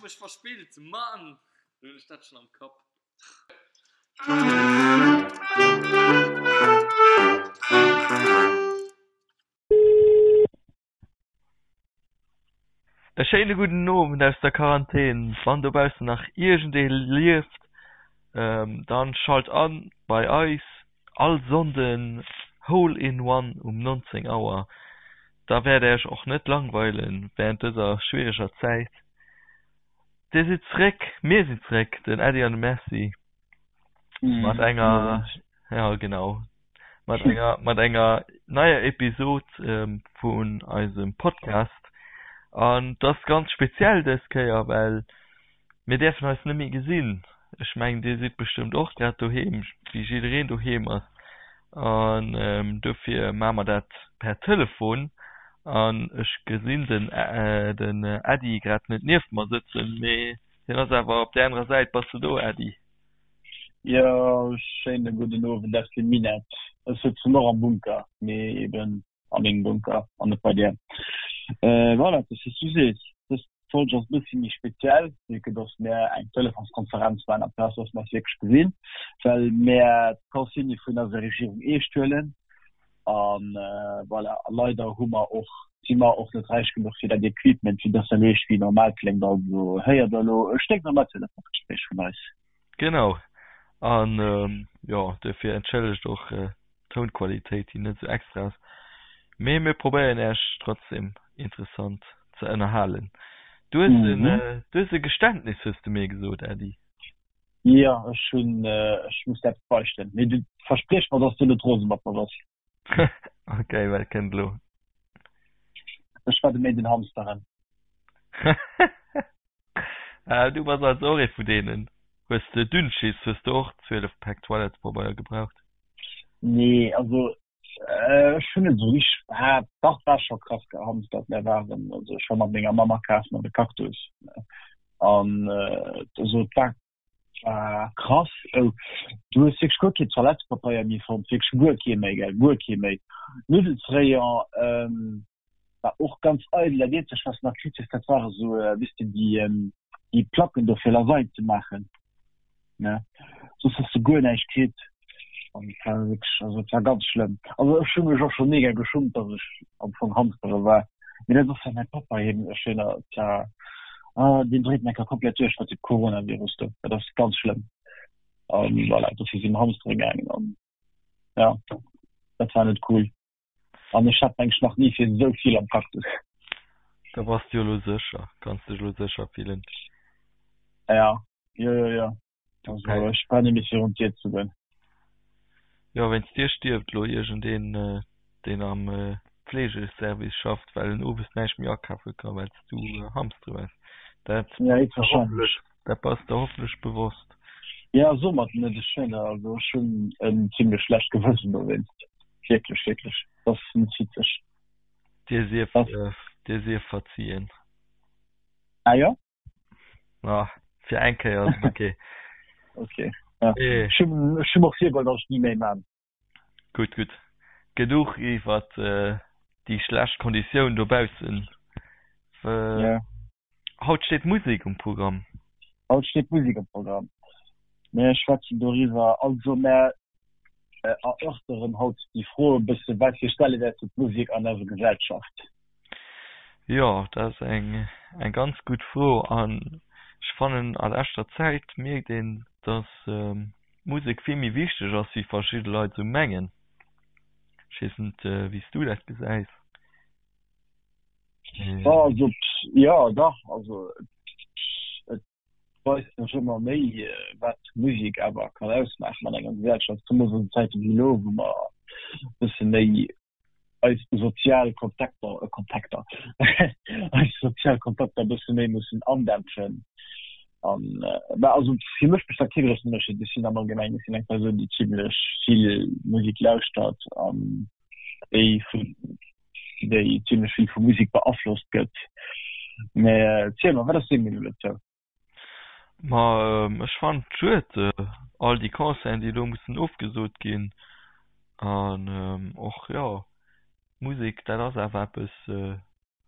mech verspillt, Mann! Lo hunn ech dat schonn am Kapp. E schéine gudden Owend aus der Quarantän. Wann dobaussen nach iergendee lieft, dann schalt an bei eis all Sonnden Hole in One um 19 Auer. Da wäert Äech och net langweilen während dëser schwiereger Zäit. Dir sidd zréck, mir sinn zréck, den Äddi an de Merci mat enger, ja genau, mat enger, mat enger neier Episod vun eisem Podcast. An et ass ganz speziell dës Kéier, well mir däerfen eis net méi gesinn. Ech mengen, Dir sidd bestëmmt och grad doheem, wéi jiddereen doheem ass. An dofir maache mer dat per Telefon. An ech gesinn den, den Äddi grad net nieft mer sëtzen, mee hien ass awer op där anerer Säit. Bass de do, Äddi? Jo, schéine gudden Owend aus dem Minett. Ech sëtzen och am Bunker, mee eben a mengem Bunker an net bei dir. Voilà, et ass wéi s du sees, dës Folg ass e bëssi méi speziell, vu que dass mär eng Telefonskonferenz maachen amplaz dass mer eis wierklech gesinn, well mär d'Consigne vun eiser Regierung eescht huelen. An voilà, a leider hu mer och, si mer och net räich genuch fir dat Equipment, fir dass dat eescht wéi normal kléngt. Also héiert der elo e sténknormalt Telefonsgespréich vun eis. Genau. An jo, duerfir entschëllegt och d'Tounqualitéit, déi net esou extra ass. Mee mir probéieren Äech trotzdem interessant ze ënnerhalen. Du hues en, du hues e Geständnis, hues de mir gesot, Äddi. Jo, ech hunn, ech muss der eppes beichten. Mee du verspriech mer, dass du net rose mat mer bass. Ok, wat kënnt elo? Ech war de Méint en Hamsteren. Ah, du bass also och ee vu deenen. Hues de Dünnschiss? Hues de och 12 Päck Toilettepabeier gebraucht? Nee, also ech hunn net esou richteg, ah dach, war scho krass gehamstert. Mär waren, also ech war mat menger Mamm akafen an de Cactus an also et war war krass. Oh, du hues wierklech guer kee Toilettepabeier méi fonnt, wierklech guer kee méi, gell, guer kee méi. Nuddelsrayon war och ganz eidel. Dat eenzegt wat s de nach kritt hues, dat ware sou, weess de, déi déi Placken do fir Lasagne ze maachen, ne. Soss hues de guer näischt kritt an et war wierklech, also et war ganz schlëmm. Also ech hu mech och scho mega geschummt, datt ech am Fong Hamstere war, mee dat ass well mäi Pappa hien, ech hunn et war, ah deen dréit enker komplett duerch mat dem Coronavirus do, dat ass ganz schlëmm. An voilà, dofir si mer Hamstere gaangen an ja, dat war net cool. An ech hat mengs nach ni fir esou vill am Cactus. Da bass de jo elo sécher, kanns dech elo sécher fillen. Ja, jo, jo, jo. Also ech brauch net méi virun d'Dier ze goen. Jo, wéinst dir stierft elo iergendeen, deen am Fleegeservice schafft, well en owes näischt méi akafe ka well s du hamstere waars. Dat Ja, héchstwahrscheinlech. Dat bass der hoffentlech bewosst. Ja, so mat net. Ech hunn also ech hunn en zimmlech schlecht Gewëssen dowéinst. Wierklech, wierklech. Dat ass net witzeg. Dir sief, dir sief verzien. Ah jo? Ah, fir eng Kéier ass et okay. Okay. Ja. Ech hunn ech hunn mer virgeholl, datt ech ni méi man. Gutt, gutt. Genuch iwwert déi schlecht Konditioun dobaussen. Ja. Haut steet Musek um Programm. Haut steet Musek um Programm. Mir schwätzen doriwwer, also mär erörteren haut déi Fro e bësse, wat fir Stellewäert huet d'Musek an eiser Gesellschaft? Jo, dat ass eng eng ganz gutt Fro an ech fannen a leschter Zäit mierkt een, datt d'Musek vill méi wichteg ass wéi verschidde Leit esou mengen. Ech weess net wéi s du dat gesäis. Also jo dach, also et weist sech ëmmer méi wat Musek awer kann ausmaachen an enger Gesellschaft, zemools an Zäite wéi elo, wou mer e bësse méi eis sozial Kontakter, Kontakter, eis sozial Kontakter e bësse méi mussen andämpfen. An bah also fir mech besteet kee groussen Ënnerscheed. Ech sinn am Allgemengen, ech sinn eng Persoun déi zimlech vill Musek lauschtert an déi vun déi zimlech vill vu Musek beaflosst gëtt. Mä ziel mer, wat ass deng Meenung dozou? Ma ech fannen et schued, all déi Concerten, déi elo mussen ofgesot ginn. An och, jo, Musek, dat ass awer eppes,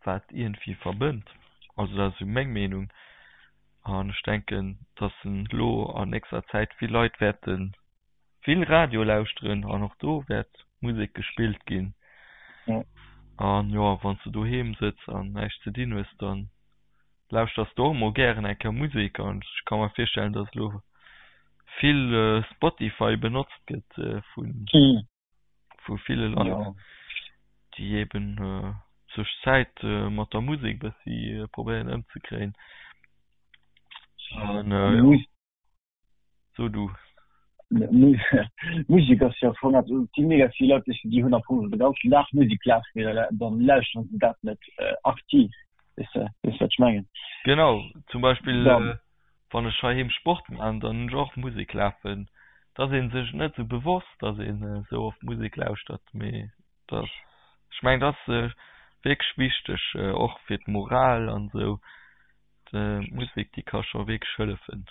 wat iergendwéi verbënnt. Also dat ass esou meng Meenung. An ech denken, dass en elo an nächster Zäit vill Leit wäerte vill Radio lauschteren an och do wäert Musek gespillt ginn. An jo, wann s de doheem sëtz an näischt ze dinn hues, dann lauschters de och mol gären eng Kéier Musek. An ech ka mer virstellen, dass elo vill Spotify benotzt gëtt vun vu ville Leit, déi eben sech Zäit mat der Musek bëssi probéieren ëmzekréien. An jo, so du. Musek ass jo am Fong eppes, et si mega vill Leit, déi hunn am Fong de ganzen Dag Musek lafen, mee dann lauschteren se dat net aktiv, weess de, weess wat ech mengen? Genau, zum Beispill Wann ech heiheem Sport maan, dann hunn ech och Musek lafen. Et ass een sech net sou bewosst, dass een sou oft Musek lauschtert, mee et ass, ech mengen et ass wierklech wichteg, och fir d'Moral an sou. D'Musek déi ka scho wierklech hëllefen.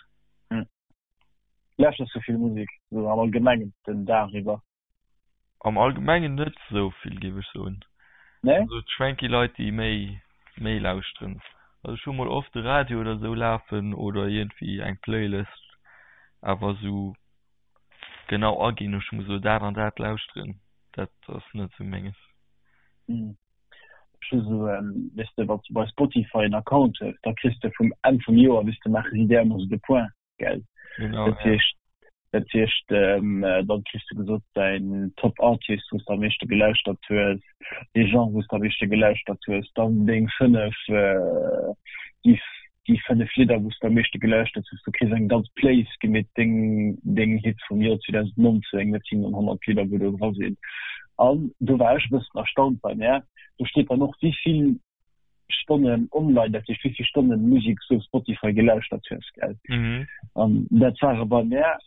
Lauschters du vill Musek sou am Allgemengen den Dag iwwer? Am Allgemengen net esou vill, géif ech soen. Nee? Also et schwenk gi Leit, déi méi, méi lauschteren. Also ech hu mol oft de Radio oder esou lafen oder iergendwéi eng Playlist, awer esou genau aginn, ech muss elo dat an dat lauschteren, dat ass net esou menges. Ech hu sou, weess de, wann s de bei Spotify en Account hues, da kriss de vum Enn vum Joer, weess de, maache si där ëmmer esou de Point. gell? Genau, Dat heescht, dat heescht ähm, dann kriss du gesot däin Top Artist, wou s de am meeschte gelauschtert hues, dee Genre, wou s de am meeschte gelauschtert hues, dann deng 5 äh, déi, déi 5 Lidder, wou s de am meeschte gelauschtert hues. Du kriss eng ganz Playlist gemeet, deng, deng Hits vum Joer 2019, dat sinn dann 100 Lidder, wou do dra sinn. An do war ech e bëssen erstaunt bei mär, do steet dann och, wéi vill Stonnen online, dat heescht wéi vill Stonnen Musek s du op Spotify gelauschtert hues, gell? Mhm. An dat ware bei mär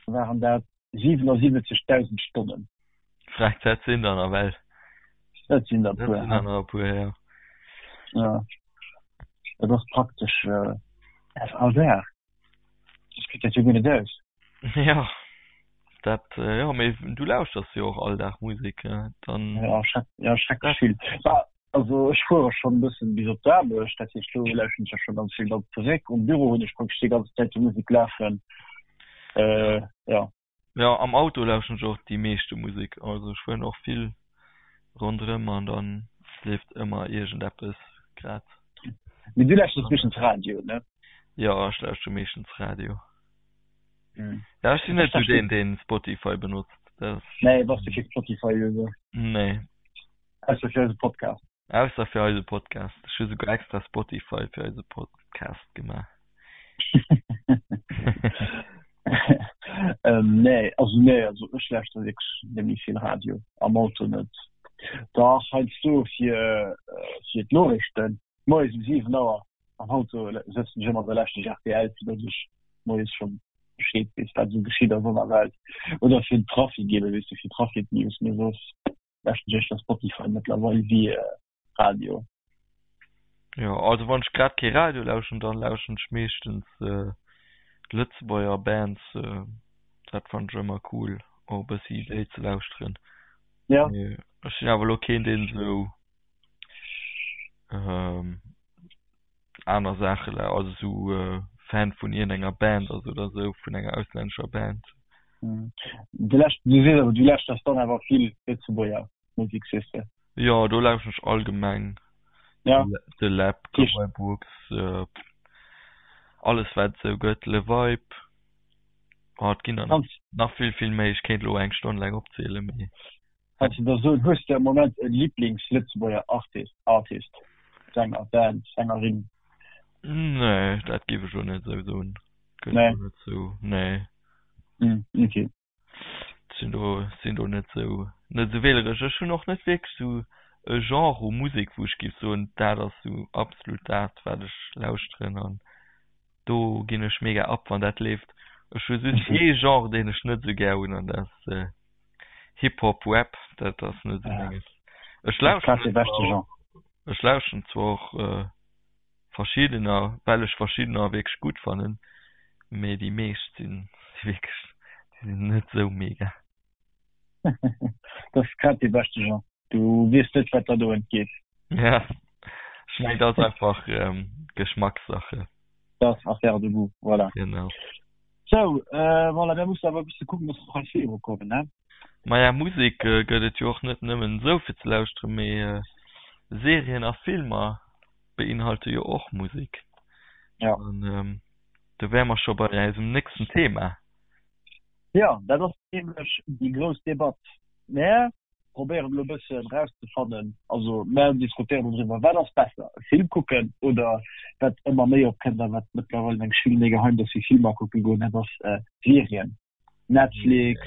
waren dat 77.000 Stonnen. Frech, dat sinn der nawell. Dat sinn der e puer. Dat sinn der nach e puer, ja. Ja. Dat ass praktesch äh, all Dag. Dat kritt dat jo guer net aus. Ja, dat, jo, mee du lauschters jo och all Dag Musek, dann. Ja, schreck, ja, schrecklech vill. Also ech fuere schonn e bëssen bis op d'Aarbecht, dat heescht do lauschteren ech ja scho ganz vill. Dann zeréck um Büro hunn ech praktesch déi ganz Zäit déi Musek lafen. Ja. Jo, am Auto lauschteren ech och déi meeschte Musek. Also ech fueren och vill ronderëm an dann leeft ëmmer iergendeppes grad. Mee du lauschters meeschtens Radio, ne? Jo, ech lauschtere meeschtens Radio. Ja, ech sinn net sou deen, deen Spotify benotzt. Dat ass. Nee, bass du kee Spotify-User? Nee. Ausser fir eise Podcast. Ausser fir eise Podcast. Ech hu souguer extra Spotify fir eise Podcast gemaach. ähm, nee, also nee, also ech lauschter wierklech net méi vill Radio, am Auto net. Dach, heiansdo fir, äh, fir d'Noriichten, moies um 7 Auer am Auto sëtzen ech ëmmer, da lauschter ech rtl, fir datt ech moies schonn Bescheed weess, wat esou geschitt ass an der Welt. Oder fir den Trafic eben, weess de, fir Trafic-News, mee soss lauschteren ech éischter Spotify mëttlerweil wéi Radio. Jo, also wann ech grad kee Radio lauschteren, dann lauschteren ech meeschtens Lëtzebuerger Bands. Dat fannen ech ëmmer cool, och e bëssi déi ze lauschteren. Ja. Mee ech sinn awer elo keen, deen esou aner Saache lau-, also esou Fan vun iergendenger Band ass oder esou, vun enger auslännescher Band. Du lauscht, du sees awer, du lauschters dann awer vill Lëtzebuerger Musek, sees de? Jo, do lauschteren ech allgemeng Ja. De Läb, Cowboy Brooks, alles wat et esou gëtt, Le Vibe, oh et ginn der nach vill vill méi, ech kéint elo eng Stonn laang opzielen, mee. Kanns de da soen, hues de am Moment e Liblings-Lëtzebuerger Artist, Artist, Sänger, Band, Sängerin? Nee, dat géif ech elo net esou soen. Gëtt Nee. elo net esou, nee. Hm, okay. Sinn do, sinn do net esou, net esou wähleresch. Ech hunn och net wierklech esou e Genre u Musek, wou ech géif soen, dat ass esou absolut dat, wat ech lauschteren an do ginn ech mega ab, wann dat leeft. Ech hu just ee Genre, deen ech net esou gär hunn an dat ass Hip Hop, Rap, dat ass net esou menges. Ech lauschteren zwar och, ech lauschteren zwar och verschiddener, well ech verschiddener wierklech gutt fannen, mee déi meescht sinn wierklech, déi sinn net esou mega. Dat ass grad dee beschte Genre. Du weess net, wat der do entgeet. Ja, ech mengen, dat ass einfach Geschmackssache. Dat ass Affaire de goût, voilà. Genau. Sou, voilà, mir mussen awer e bësse kucken, dass mer hei virukommen, ne? Maja, Musek gëtt et jo och net nëmmen esou fir ze lauschteren, mee Serien a Filmer beinhalte jo och Musek. Ja. An do wäre mer scho bei eisem nächsten Thema. Jo, dat ass nämlech déi grouss Debatt. Mär probéieren elo e bëssen erauszefannen, also mär diskutéieren doriwwer, wat ass besser, e Film kucken oder, wat ëmmer méi opkënnt a wat mëttlerweil meng ech vill méi geheim, dass wir Filmer kucke goen, dat ass Serien, Netflix,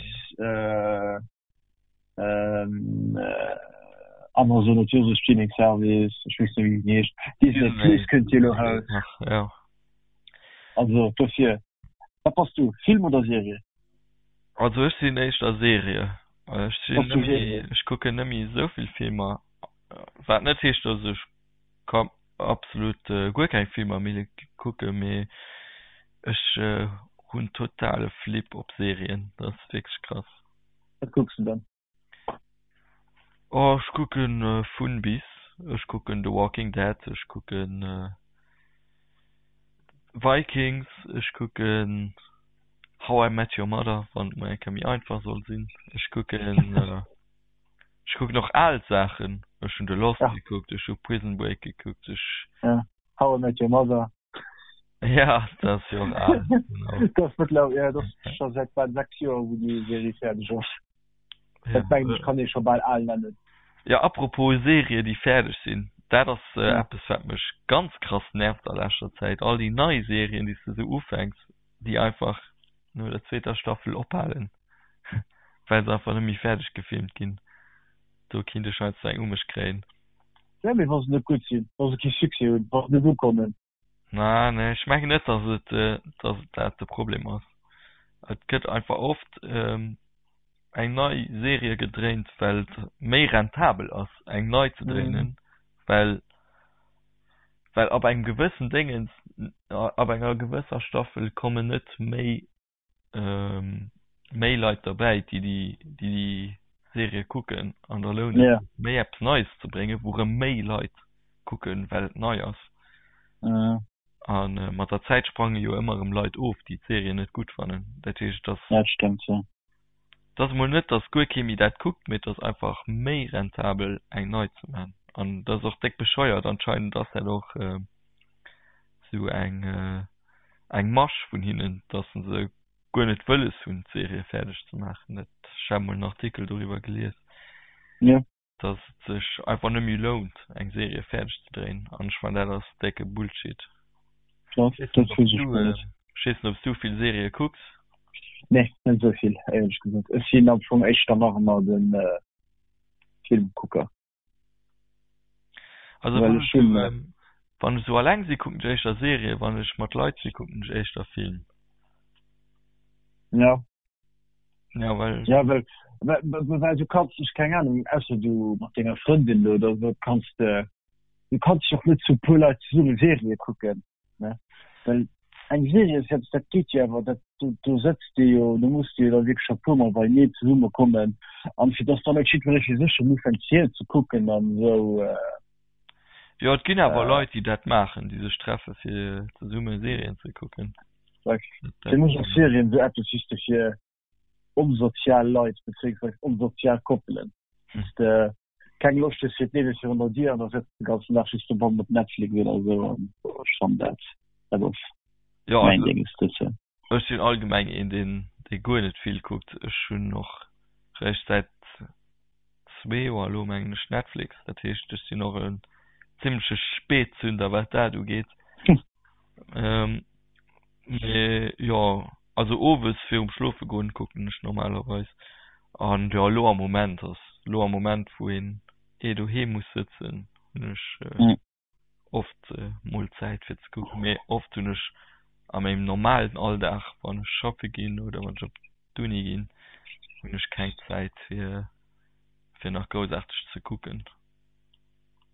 Amazon huet jo och esou Streaming Service, ech weess net wéi deen heescht, Disney Plus kënnt jo elo raus. Also dofir. Wat bass du, Film oder Serie? Also ech sinn éischter Serie. Ech sinn net méi, ech kucken net méi esou vill Filmer. Wat net heescht, datt ech absolut guer keng Filmer méi kucken, mee ech hunn totale Flip op Serien. Dat ass wierklech krass. Wat kucks du dann? Oh ech kucken vun bis. Ech kucken The Walking Dead, ech kucken Vikings, ech kucken How I Met Your Mother, wann et mol eng Kéier méi einfach soll sinn. Ech kucken ech kucken och al Saachen. Ech hunn The Lost gekuckt, ech hu Prison Break gekuckt, ech. How I Met Your Mother. Ja, dat ass jo och al. Genau. Dat ass mëttlerweil, ja, dat ass scho säit bal 6 Joer, wou déi Serie fäerdeg ass. Dat mengen ech kann ee scho bal al nennen. Ja, apropos Serien, déi fäerdeg sinn, dat ass eppes, wat mech ganz krass nervt a leschter Zäit. All déi nei Serien, déi s de sou ufänks, déi einfach no der zweeter Staffel ophalen, well se einfach net méi fäerdeg gefilmt ginn. Do kinnt ech heiansdo eng u mech kréien. Ja, mee wa se net gutt sinn, wa se kee Succès hunn, wa se net ukommen. Na, nee, ech mengen net, dass et, dass et dat de Problem ass. Et gëtt einfach oft eng nei Serie gedréint, well et méi rentabel ass, eng nei ze dréinen, well, well ab engem gewëssen Déngens, ab enger gewësser Staffel kommen net méi méi Leit derbäi, déi déi déi Serie kucken an da lount et sech méi eppes Neies ze bréngen, wou rëm méi Leit kucken, well et nei ass. A mat der Zäit sprange jo ëmmer erëm Leit of, déi d'Serie net gutt fannen. Dat heescht, et ass. Dat stëmmt, jo. Et ass emol net, datt guer kee méi dat kuckt, mee et ass einfach méi rentabel, eng nei ze maachen. An dat ass och déck bescheuert. Anscheinend ass dat och esou eng. eng Masch vun hinnen, dass se guer net wëlles hunn d'Serie fäerdeg ze maachen. Dat, ech hat mol en Artikel doriwwer gelies, ja. dass et sech einfach net méi lount eng Serie fäerdeg ze dréien an ech fannen dat ass décke Bullshit. Dat, dat weess ech guer net. Ech weess net ob s du vill Serië kucks? Nee, net esou vill éierlech gesot. Ech sinn am Fong éischter nach ëmmer de Filmkucker. Also wann ech sou, ähm, wann ech sou alleng si kucken ech éischter Serie, wann ech mat Leit si kucken ech éischter Film. Ja. Ja, well. Ja, well, well, well du kanns dech, keng Ahnung, ausser du mat denger Frëndin oder sou, kanns de, du kanns dech och net zu puer Leit zesumme Serie kucken. Ne? Well eng Serie ass eppes, dat geet jo awer, dat, do, do sëtzt de jo, do muss de jo da wierklech e puermol beieneen zesumme kommen an fir dass dann net jiddweree fir sech schonn ufänkt d'Serie ze kucken an esou. Jo, et ginn awer Leit, déi dat maachen, déi sech treffe fir zesumme Serien ze kucken. Fir mech ass Serien esou eppes just fir onsozial Leit bezéiungsweis onsozial Koppelen. Wou s de keng Loscht hues fir d'Liewe virun der Dier an da sëtz de ganzen Dag just dobannen op Netflix oder esou an ech fannen dat, dat ass Jo, mäin also Dénges dozou. ech sinn allgemeng een deen dee guer net vill kuckt. Ech hunn och réischt säit zwee Joer elo mengen ech Netflix, dat heescht ech sinn och en zimmleche Spätzünder wat dat ugeet. Mee jo, also owes virum schlofe goen kucken ech normalerweis. An jo elo am Moment ass elo am Moment wou een eh doheem muss sëtzen hunn ech oft mol Zäit fir ze kucken. Mee oft hunn ech a mengem normalen Alldag wann ech schaffe ginn oder wann ech op d'Uni ginn hunn ech keng Zäit fir fir nach groussaarteg ze kucken.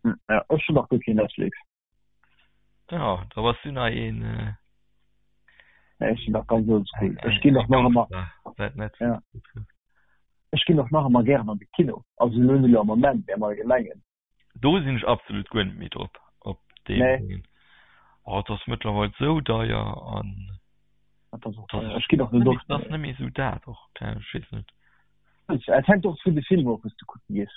Ja, ech hunn nach guer keen Netflix. Ja, da bass du nach een. Äh, ja, ech sinn nach ganz oldschool. Ech ginn och nach ëmmer. Ja. Ech ginn och nach ëmmer gären an de Kino. Also elo net elo am Moment, mee am Allgemengen. Do sinn ech absolut guer net méi drop, op deem Nee. Ding. Oh, et ass mëttlerweil sou deier an Dat ass och deier. Ech ginn och net oft. Dat ass net méi sou dat och, ech weess net. Et hänkt och vun de Filmer of, wou s de kucke gees.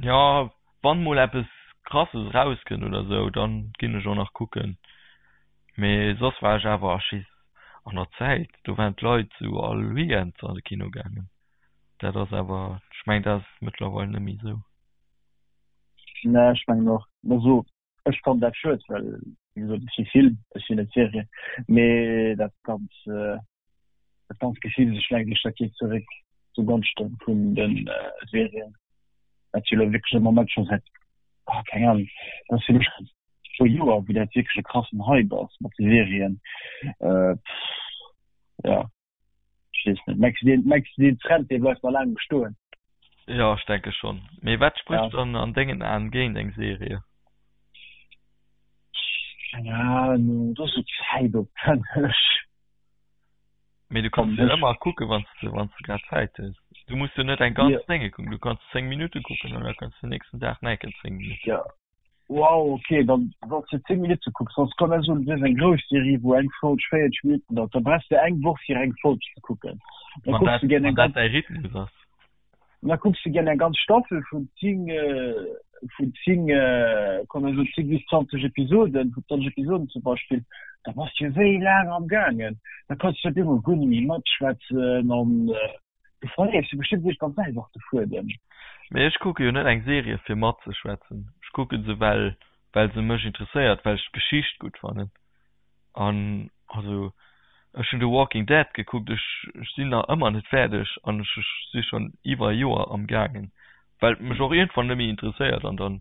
Jo, wann mol eppes krasses erauskënnt oder sou, dann ginn ech och nach kucken. Mee soss war ech awer ech weess an der Zäit, do waren d'Leit sou all Weekend an de Kino gaangen. Dat ass awer, ech mengen dat ass mëttlerweil net méi sou. Nee, ech mengen och. Also ech fannen dat schued, well wéi gesot ech si Film, ech sinn net Serie. Mee dat ganz dat ganz Gefill sech lenkt ech dat geet zeréck zu Gonschte vun de Serien. Dat jo elo wierklech am Moment scho säit, ah keng Ahnung, dat ass fir mech scho puer Joer, wou dat wierklech e krassen Hype ass mat de Serien. Jo. Ech weess net. Mengs du deen, mengs du deen Trend dee bleift nach laang bestoen? Jo, ech denke schonn. Mee wat sprécht dann an dengen Aen géint eng Serie? Keng Ahnung, dat ass sou zäitopwänneg. Mee du kanns jo ëmmer kucken, wann s de, wann s de grad Zäit hues. Du muss jo net eng ganz Dénge kucken, du kanns 10 Minutte kucken an da kanns du den nächsten Dag nach eng Kéier 10 Minutten. Jo, Wow, ok, dann wanns de 10 Minutte kucks, soss komm ech soen, du hues eng grouss Serie wou eng Folg 40 Minutten dauert, da brauchs de eng Woch fir eng Folg ze kucken. Da kucks de gär eng ganz, däi Rhythmus ass. Da kucks de gär eng ganz Staffel vun 10, vun 10, komm ech soen 10 bis 20 Episoden, vun 20 Episoden zum Beispill, da bass de jo wéi laang am gaangen, da kanns de op eemol guer net méi matschwätzen an. Du verléiers jo bestëmmt iergendwann selwer och de Fuedem. Mee ech kucke jo net eng Serie fir matzeschwätzen. Ech kucke se well well se mech interesséiert, well ech d'Geschicht gutt fannen. An also ech hunn The Walking Dead gekuckt, ech ech sinn nach ëmmer net fäerdeg an ech ech si schonn iwwer e Joer am gaangen, well et mech och iergendwann net méi interesséiert an dann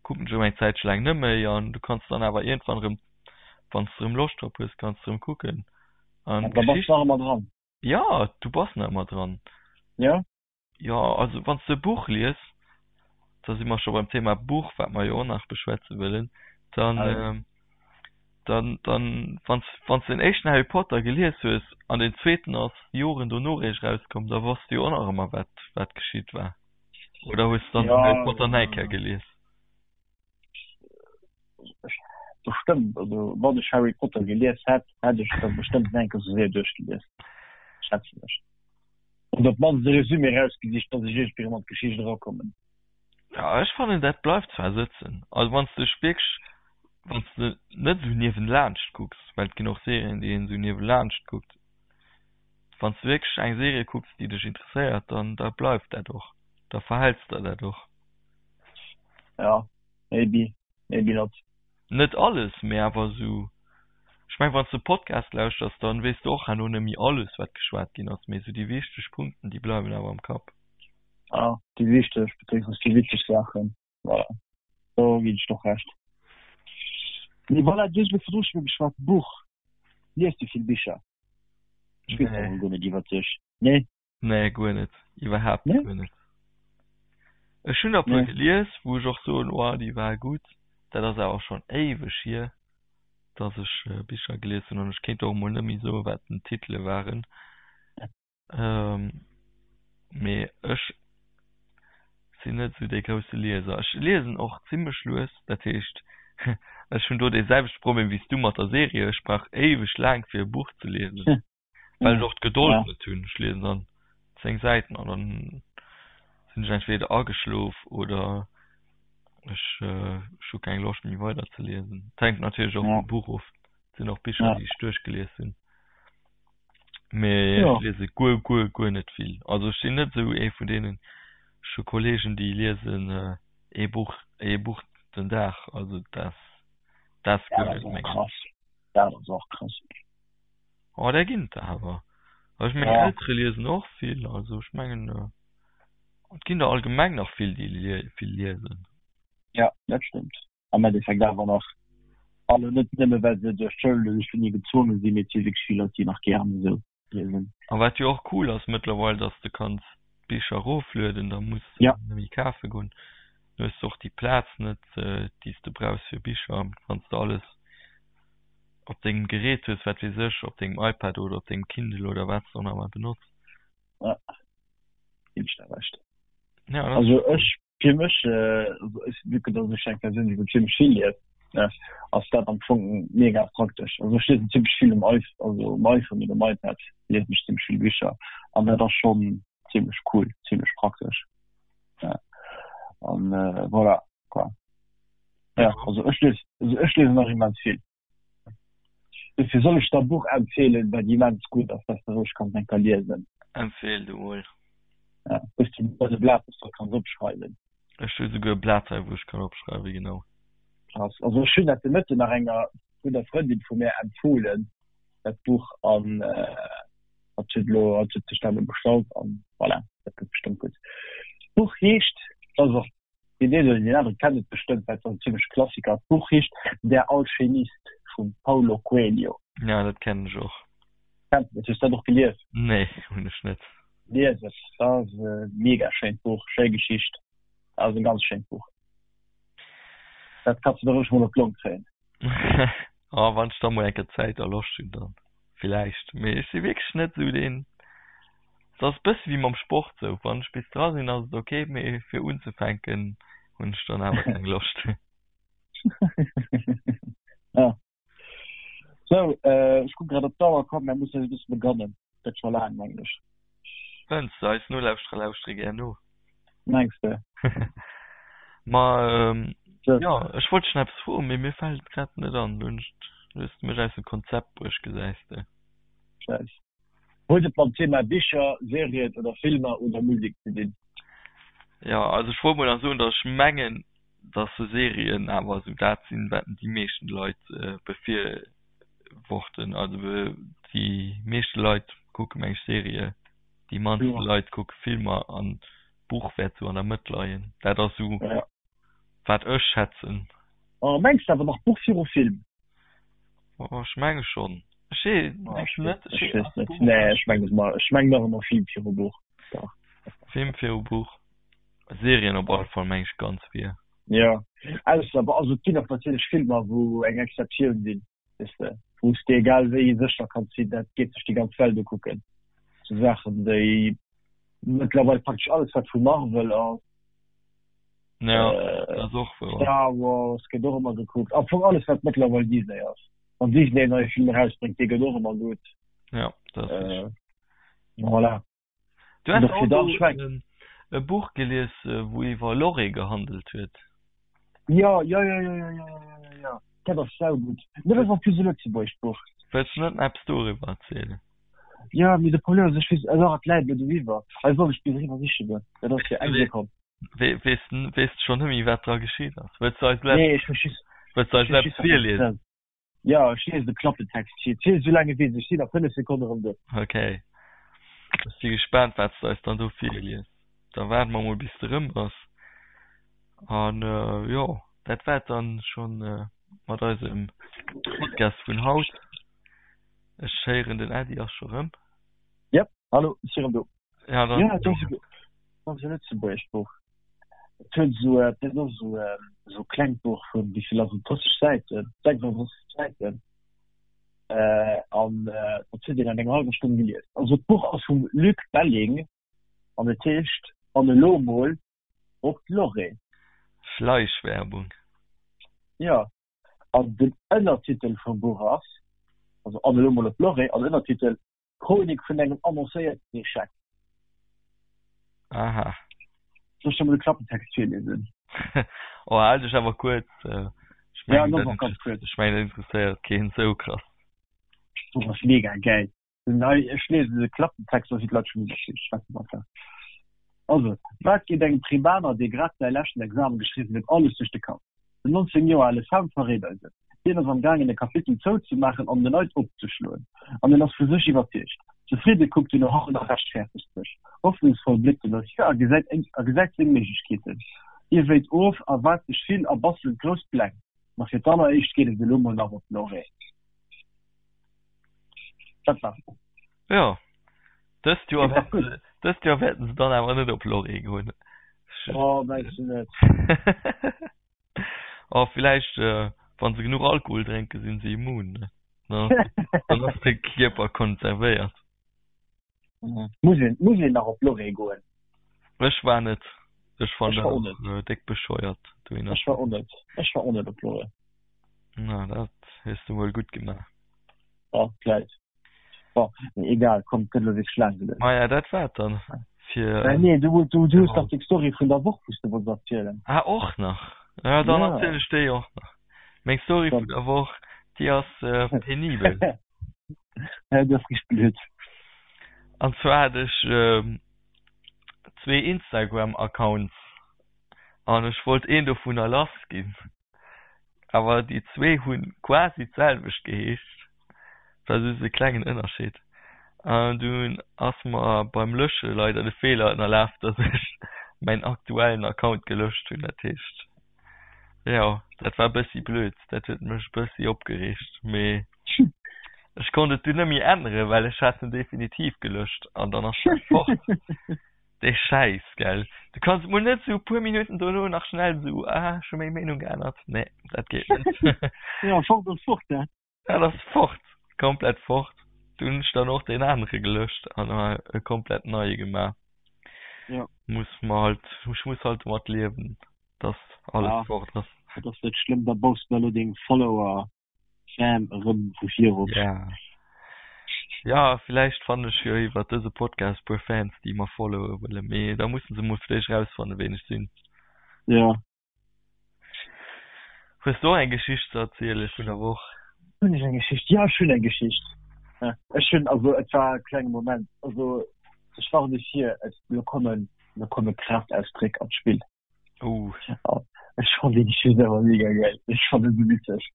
kucken ech erëm eng Zäitche laang net méi an du kanns dann awer iergendwann erëm, wann s de erëm Loscht drop hues, kanns de erëm kucken. An da bass de nach ëmmer dran. Jo, du bass nach ëmmer dran. Jo. Jo, also wann s de e Buch lies, da si mer scho beim Thema Buch, wat mer jo och nach beschwätze wëllen, dann, dann, dann, wann s, wann s de den éischten Harry Potter gelies hues an den zweeten ass Joren dono eréischt erauskomm, da wosst de jo och nach ëmmer, wat, wat geschitt war. Oder hues de dann den Harry Potter nach eng Kéier gelies? Bestëmmt, also wann ech Harry Potter gelies hätt, hätt ech der bestëmmt nach eng Kéier sou séier duerchgelies, schätzen ech. Oder op d'mannst e Resumé erausgesicht, dass ech iergendwéi erëm an d'Geschicht erakommen. Ja, ech fannen dat bleift zwar sëtzen, also wann s de dech wierklech, wann s de net esou niewenlaanscht kucks, well et ginn och Serien déi een esou niewelaanscht kuckt, wann s de wierklech eng Serie kucks déi dech interesséiert, dann da bleift dat och, da verhäls der dat och. Ja, maybe, maybe not. Net alles, mee awer esou, ech meng wann s de Podcast lauschters, dann weess de och herno net méi alles wat geschwat ginn ass, mee esou déi wichteg Punkten déi bleiwen awer am Kapp. Ah, déi wichteg beziéungsweis déi witzeg Saachen, voilà, do ginn ech der och Recht. Mee voilà, du hues elo virdru scho geschwat, Buch, liest du vill Bicher? Ech weess dat emol guer net iwwert dech, nee? Nee, guer net. Iwwerhaapt nee? guer net. Ech hunn der puer nee. gelies, wou ech och soen, oh, déi war gutt. Dat ass awer schonn éiweg hier, dass ech äh, Bicher gelies hunn an ech kéint och mol net méi soen, wat den Titele waren. Ähm, mee ech sinn net esou dee grousse Lieser. Ech liesen och zimmlech lues, dat heescht, ech hunn do dee selwechte Problem wéi s du mat der Serie, ech brauch éiweg laang fir e Buch ze liesen. Well ech och d'Gedold ja. net hunn. Ech liesen dann 10 Säiten an dann sinn ech entweder ageschlof oder ech, äh, ech hu keng Loscht méi weider ze liesen. Et hänkt natierlech och ja. vum Buch of. Et sinn och Bicher, ja. déi ech duerchgelies hunn. Mee ja. ech liese guer, guer, guer net vill. Also ech sinn net esou ee vun deenen, ech hu Kollegen, déi liesen äh, ee Buch, ee Buch den Dag. Also dat, dat ass guer net menges. Krass. Dat ass och krass. Oh, där ginn et der awer. Also ech meng Eltere liesen och vill, also ech mengen et ginn der allgemeng nach vill déi vill liesen. Ja, dat stëmmt. Am Endeffekt awer nach alle net nëmme well se duerch d'Schoul oder duerch d'Uni gezwonge sinn, mee et si wierklech vill Leit déi nach gären esou liesen. A wat jo och cool ass mëttlerweil, dass de kanns d'Bicher eroflueden, da muss de Ja. net méi kafe goen. Du hues och déi Plaz net, déi s de brauchs fir Bicher, wann s de alles op dengem Gerät hues, wat weess ech, op dengem iPad oder op dengem Kindle oder wat s de och nach ëmmer benotz. Ja, ginn ech der Recht. Ja, also ech, fir mech, also ech, vu que dass ech eng Persoun sinn, wou zimmlech vill liest. Ne, ass dat am Fong mega praktesch. Also ech liesen zimmlech vill um iPh also um iPhone oder um iPad liesen ech zimmlech vill Bicher an dat ass schonn zimmlech cool, zimmlech praktesch. Ja. An äh, voilà, quoi. Ja, also ech lies, also ech liesen nach immens vill. Dofir soll ech der e Buch empfehlen, wat immens gutt ass, dat de roueg kanns eng Kéier liesen. Empfehl du mol. Ja, hues du e Blat, wou s de kanns opschreiwen? Ech hu souguer e Blat hei, wou ech kann opschreiwen, genau. Krass. Also ech hunn dat de Mëtten nach enger gudder Frëndin vu mär empfohlen, dat Buch, an hatt huet elo, hatt huet sech dat elo bestallt an voilà, dat gëtt bestëmmt gutt. D'Buch heescht, dat ass och Deen een oder deen anere kennt et bestëmmt, well et ass en zimmleche Klassiker. D'Buch heescht Der Alchemist vum Paulo Coelho. Ja, dat kennen ech och. Kenns de dat? Hues dat och gelies? Nee, hunn ech net. Lies et, dat ass e mega schéint Buch, schéi Geschicht. Dat ass e ganz schéint Buch. Dat kanns de der roueg mol op d'Long kréien. Oh, wann ech da mol eng Kéier Zäit a Loscht hunn, dann villäicht. Mee ech si wierklech net esou deen. Et ass e bësse wéi mam Sport sou, wann ech bis dra sinn, ass et ok, mee fir unzefänken hunn ech dann awer keng Loscht. Ja. Sou, ech kucke grad op d'Auer, komm mär mussen eis e bësse begannen, gëtt scho laang mengen ech. Fënns de? Eis Nolauschterer lauschtere gär no. Mengs de? Ma jo, ech wollt dech nach eppes froen, mee mir fält et grad net an. Lo hues de mech aus dem Konzept bruecht, gesäis de. Schäiss. Huet et mam Thema Bicher, Serien oder Filmer oder Musek ze dinn? Jo, also ech wollt mol nach soen, datt ech mengen, datt sou Serien awer esou dat sinn, wat déi meeschten Leit befirworten. Also déi meeschte Leit kucke meng ech Serie, déi mannste Leit kucke Filmer an d'Buch wäert sou an der Mëtt leien. Dat ass sou wat ech schätzen. Oh, mengs de awer nach Buch viru Film? Oh, ech menge schonn. Ech weess ech net. Ech weess net. Nee, ech mengen et ech mengen nach ëmmer Film viru Buch. Dach. Film viru Buch. Serien op alle Fall meng ech ganz vir. Jo, ausser, also et ginn och natierlech Filmer wou eng Exceptioun sinn, weess de, wou s de egal wéi sécher kanns sinn, dat geet sech déi ganz Welt ukucken. Sou Saachen wéi mëttlerweil praktesch alles wat vu Marvel ass. Ja, dat ass och wouer. Star Wars gëtt och ëmmer gekuckt. Am Fong alles wat mëttlerweil Disney ass. Wann Disney en neie Film erausbréngt, dee gëtt och ëmmer gutt. Ja, dat ass richteg. Voilà. Du has och do e Buch gelies, wou iwwer Lorry gehandelt huet. Jo, jo, jo, jo, jo, jo, jo, jo, dat ass saugutt. Dat ass en plus e lëtzebuergescht Buch. Wëlls du net nach eppes doriwwer erzielen? Jo, mee de Problem ass, ech weess, alors et läit elo doriwwer. Hei soll ech bis eriwwer siche goen. Dat ass fir eng Sekonn. Weess weess de schonn net méi, wat dra geschitt ass? Wëlls du eis Nee, ech hu just, wëlls du eis eppes virliesen? Jo, ech liesen de Klappentext vir. Ziel esou laang ewéi ech sinn a 5 Sekonne erëm do. Ok. Ech si gespaant, wat s de eis dann do virlies. Da waarde mer mol, bis de erëm bass. An jo, dat war et dann schonn mat eisem Podcast vun haut. Ech héieren, den Äddi ass scho rëm. Yep, hallo, ech si rëm do. Ja, dann. Ja, et ass e, ass e lëtzebuergescht Buch. Et huet esou, et ass esou, esou klengt Buch vun, wéi vill ass et, 30 Säiten, 36 Säiten. An dat huet een an enger hallwer Stonn gelies. Also d'Buch ass vum Luc Belling an et heescht An elo mol op d'Lorée. Schleichwerbung. Jo, An den Ënnertitel vum Buch ass, also An elo mol op d'Lorée, an Ënnertitel, Chronik vun engem annoncéierten Echec. Aha. Soll ech der mol de Klappentext virliesen? Oh, hal dech awer kuerz. Ech Ja, mengen, dat ganz kuerz. Ech mengen, dat interesséiert keen esou krass. D'Buch ass mega gäil. Nei, ech liesen de Klappentext, da si d'Leit scho méi schwätzen einfach. Also, wat geet engem Primaner, dee grad säi leschten Examen geschriwwen huet, alles duerch de Kapp? Den 19 Joer ale Sam verréit eis et. Hien ass am gaangen e Kapitel zouzemaachen an en neit opzeschloen. An en ass vu sech iwwerzeegt. Zefridde kuckt en no hannen a rechtfäertegt sech. Hoffnungsvoll bléckt en no vir a gesäit a gesäit seng Méiglechkeeten. Hie wéit of, erwaart sech vill a bastelt grouss Pläng. Ma fir d'alleréischt geet et elo mol nach op d'Lorée. Dat war's. Jo, dëst Joer wäerten se, dëst Joer wäerten se dann awer net op Lorée goen. Oh, mengs du net? Oh, villäicht, wann se genuch Alkohol drénken, sinn se immun, ne? Dann ass de Kierper konservéiert. Muss een, muss een nach op Lorée goen? Ech war net. Ech fannen dat och déck bescheuert dohinner. Ech war och net. Ech war och net op Lorée. Na, dat hues du mol gutt gemaach. Ja, vläit. Bon, mee egal, komm, et gëtt elo wierklech laang genuch. Maja, dat war et dann fir. Äh, nee, du, du, du hues dach deng Story vun der Woch, wou s du wollts erzielen. Ah, och nach? Ja, dann ja. erziel ech déi och nach. Meng Story vun der Woch, déi ass äh, penibel. Ja, dat ass richteg blöd. An zwar hat ech ähm, zwee Instagram-Accounts an ech wollt een dovunner lass ginn. Awer déi zwee hunn quasi d'selwecht geheescht, et war just e klengen Ënnerscheed. An dunn ass mer beim Lösche leider de Feeler ënnerlaf, dass ech mäin aktuellen Account gelöscht hunn. Dat heescht, jo, dat war e bëssi blöd, dat huet mech e bëssi opgereegt, mee ech konnt et dunn net méi änneren, well ech hat en definitiv gelöscht an dann ass dat fort. Dee Schäiss, gell? Du kanns mol net sou puer Minutten dono nach schnell sou, ah, ech hu meng Meenung geännert. Nee, dat geet net. Ja, fort ass fort, ne? Dat ass fort, komplett fort. Du hunn ech dann och deen anere gelöscht an e komplett neie gemaach. Ja. Muss mer halt, ech muss halt domat liewen, dass alles ja. fort ass. Dat ass net schlëmm, da baus du elo deng Follower Fan erëm vu vir op. Ja. Ja, villäicht fannen ech jo iwwert dëse Podcast puer Fans, déi mer followe wëllen, mee da mussen se mol fir d'éischt rausfannen, ween ech sinn. Ja. Hues du och eng Geschicht ze erziele vun der Woch? Hunn ech eng Geschicht? Ja, ech hunn eng Geschicht. Ech hunn, also et war e klenge Moment, also ech warne vir, et, lo kommen, lo komme Kraftausdréck an d'Spill. Oh. Ech fand déi Geschicht awer mega geil. Ech fand et sou witzeg.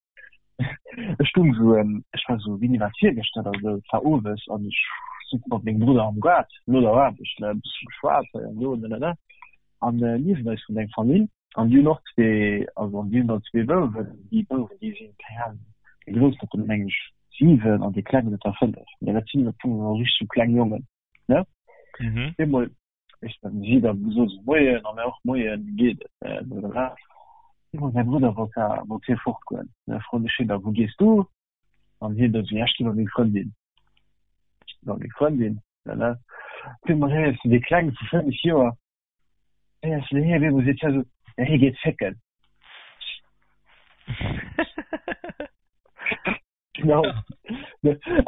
Ech stung sou, ähm, ech war sou, wéini war et, virgëschter oder sou, et war owes an ech sutz mat mengem Brudder am Gaart no der Aarbecht, ne, e bësse geschwat hei an do, ne, ne, ne. An äh, niewent eis wunnt eng Famill an déi hunn och zwee, also an déi hunn dann zwee Bouwen. Déi Bouwen, déi sinn, keng Ahnung, dee Groussen huet der meng ech 7 an dee Klengen huet der 5. Mee dat sinn am Fong nach richteg sou kleng Jongen, ne. Mhm. Eemol Ech dann si da gesot so moien an och moien wéi geet et äh, blablabla. Eemol mäi Brudder wollt da wollt hie fortgoen. Da froen ech hien da wou gees du? An hien da sou ja ech gi bei meng Frëndin. Ech gi bei meng Frëndin ne. Op eemol héiers du dee Klenge vu 5 Joer héiers du hie op eemol seet hie sou ja hie geet fécken. Genau.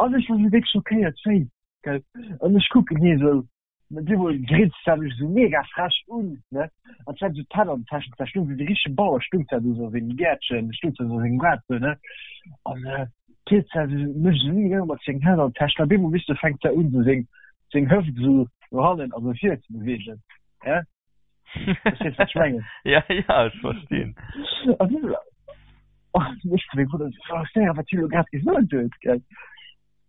An ech war sou déck schockéiert wéi gell. An ech kucken hie sou Mat eemol grinst hat mech esou mega frech un, ne? An zwar esou d'Hänn an den Täschen, zwar stung wéi de richtege Bauer, stung zwar do sou a sengem Gäertchen, stung zwar sou a sengem Gaart sou, ne? An d'Hiert zwar sou mech esou mega mat sengen Hänn an den Täschen, op eemol weess de fänkt se un sou seng seng Hëft sou no hannen an no vir ze beweegen, hä? Verstees wat ech mengen? Ja, ja, ech verstinn. An du sou, oh, ech zu mengem Brudder sou, oh, séier, wat hie lo grad gesot huet, gell?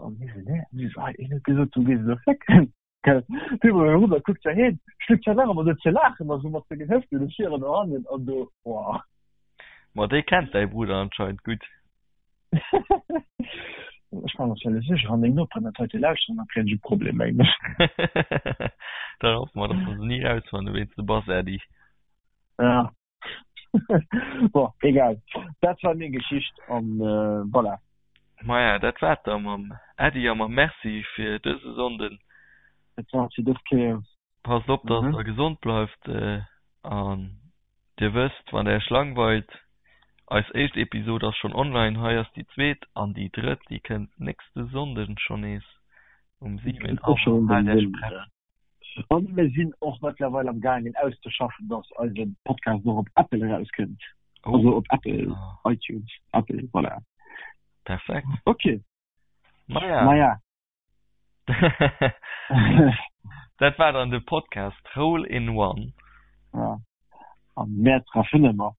An hie sou, nee, an hie sou, ah, hien huet gesot, du gees elo fécken. Gell, du mol rüber kuckt ja hin, schlüpft ja nach ëmmer do ze laachen, a sou mat sengen Hëften no vir an no hannen an do, boah. Ma dee kennt däi Brudder anscheinend gutt. Ech war mer zwar net sécher, wann deng Noperen dat heite lauschteren, da kréien ech e Problem, mengen ech. Dann hoffe mer, dass mer se ni rausfannen, ween s de bass, Äddi. Ja. Bon, egal. Dat war meng Geschicht an voilà. Maja, dat war et da mam Äddi a mam Merci fir dëse Sonnden. Dat war et fir dës Kéier. Passt op, dass der gesond bleift an dir wësst, wann der iech langweilt, eis éischt Episod ass schonn online, hei ass déi zweet an déi drëtt, déi kënnt nächste Sonnden schonn nees um 7 Auer. Haalt iech prett. An mir sinn och mëttlerweil am gaangen auszeschaffen, dass eise Podcast och op Apple erauskënnt. Oh. Also op Apple, iTunes, Apple, voilà. Perfekt. Okay. Maja. Maja. Dat war dann de Podcast Hole in One. Ja. An mehr treffen ëmmer.